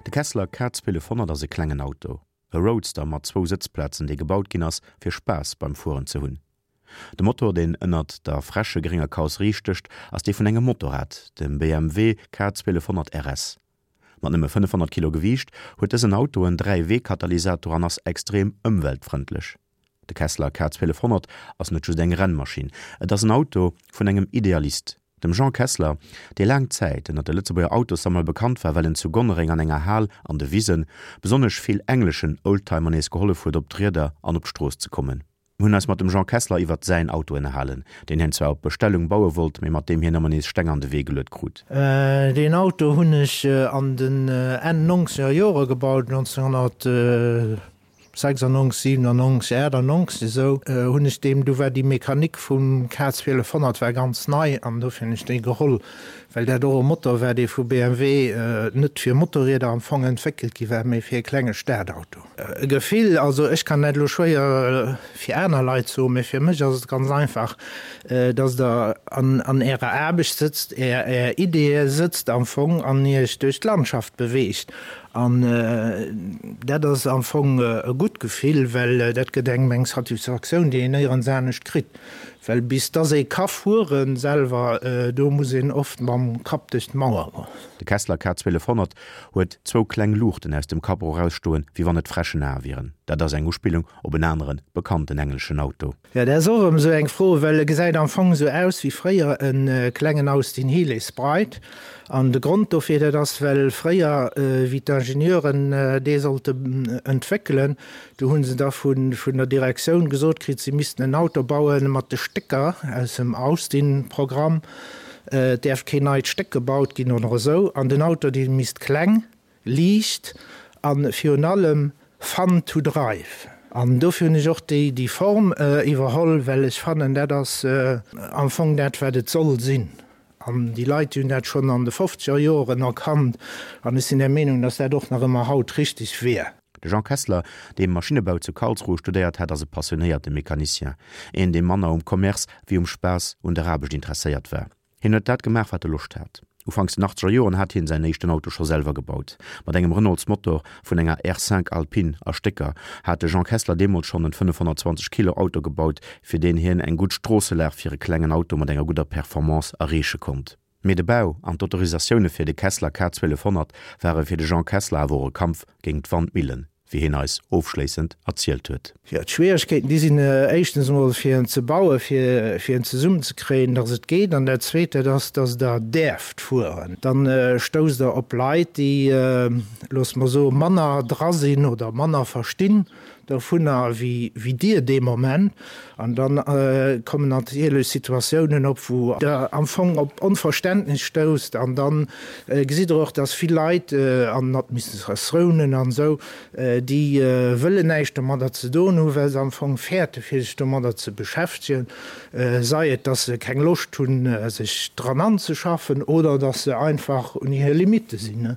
De Kessler K1200 ass e klengen Auto, e Roadster mat zwou Sëtzplazen, dee gebaut ginn ass, fir Spaass beim Fueren ze hunn. De Motor, deen ënnert der fresche grénger Karosserie stécht, ass dee vun engem Motorrad, dem BMW K1200 RS. Mat nëmme 500 Kilo Gewiicht huet dësen Auto en Dräiwee-Katalysator an ass extrem ëmweltfrëndlech. De Kessler K1200 ass net just eng Rennmaschinn, et ass en Auto vun engem Idealist, dem Jean Kessler, dee laang Zäit ënnert de Lëtzebuerger Autossammler bekannt war, well en zu Gonnereng an enger Hal an de Wisen besonnesch vill engleschen Oldtimer nees gehollef huet op d'Rieder an op d'Strooss ze kommen. Mir hunn eis mat dem Jean Kessler iwwert säin Auto ënnerhalen, deen hien zwar op Bestellung baue wollt, mee mat deem hien ëmmer nees Steng an de Wee geluet krut. Deen Auto hunn ech an den Enn nonzeger Jore gebaut, 1996, 97, 98 esou hunn ech deem, du war déi Mechanik vum K 1200 war ganz nei an dofir hunn ech déi geholl, well dat och e Motor war, dee vu BMW net fir Motorrieder am Fong entwéckelt gi war, mee fir e klenge Stadauto. E Gefill, also ech kann dat elo schwéier fir aner Leit soen, mä fir mech ass et ganz einfach, dass Der an Ärer Aarbecht sëtzt, Är Ideeë sëtzt am Fong an Iech duerch d'Landschaft beweegt. An dat ass am Fong e gutt Gefill, well dat gëtt engem eng Satisfaktioun, déi een néierens anescht kritt. Well bis dass ee ka fueren selwer, do muss een oft mam Kapp duerch d'Mauer goen. De Kessler K 1200 huet zwou kleng Luuchten aus dem Capot erausstoen, wéi wann et Fräschenae wieren. Dat ass eng Uspillung op en anere bekannten engleschen Auto. Jo, dat ass och erëm esou eng Fro, well e gesäit am Fong esou aus wéi fréier e klengen Austin Healey Sprite. An de Grond dofir, dat ass, well fréier, wéi d'Ingenieuren dee sollte entwéckelen, do hu se da vun der Direktioun gesot kritt, si missten en Auto baue mat de Stécker aus dem Austin-Programm. Et däerf keen neit Stéck gebaut ginn oder esou. An den Auto, dee misst kleng, liicht a virun allem fun to drive. An dofir hunn ech och déi Form iwwerholl, well ech fannen, dat ass am Fong dat, wat et soll sinn. An déi Leit, déi hunn dat schonn an de fofzeger Joren erkannt. An ech sinn der Meenung, datt dat och nach ëmmer haut richteg wier. De Jean Kessler, dee Maschinnebau zu Karlsruhe studéiert hat, ass e passionéierte Mecanicien, een dee manner um Commerce wéi um Spaass un der Aarbecht interesséiert war. Hien huet dat gemaach wat e Loscht hat. Ufanks den achtzeger Joren hat hien säin éischten Auto scho selwer gebaut. Mat engem Renaults-Motor vun enger R5 Alpine a Stécker hat de Jean Kessler deemools schonn en 520 Kilo Auto gebaut, fir deen hien eng gutt Stroosselag fir e klengen Auto mat enger gudder Performance erreeche konnt. Mee de Bau an d'Autorisatioune fir de Kessler K 1200 ware fir de Jean Kessler awer och e Kampf géingt d'Wandmillen, wéi hien eis ofschléissend erzielt huet. Jo, d'Schwieregkeeten, déi sinn éischtens emol fir en ze bauen, fir fir en zesummenzekréien, datt et geet. An dat Zweet, dat ass, datt Der däerft fueren. Dann stousst Der op Leit, déi, loosse mer soen, manner dra sinn oder manner verstinn dovunner wéi dir dee Moment. An da kommen natierlech Situatiounen op, wou Der am Fong op Onverständnis stousst. An da gesitt Der och, dass vill Leit an Administratiounen an esou, déi wëllen näischt domadder ze doen hunn, well se am Fong fäerte fir sech domadder ze beschäftegen, sei et, dass se keng Loscht hunn, sech dran anzeschaffen, oder dass se einfach un hir Limitte sinn.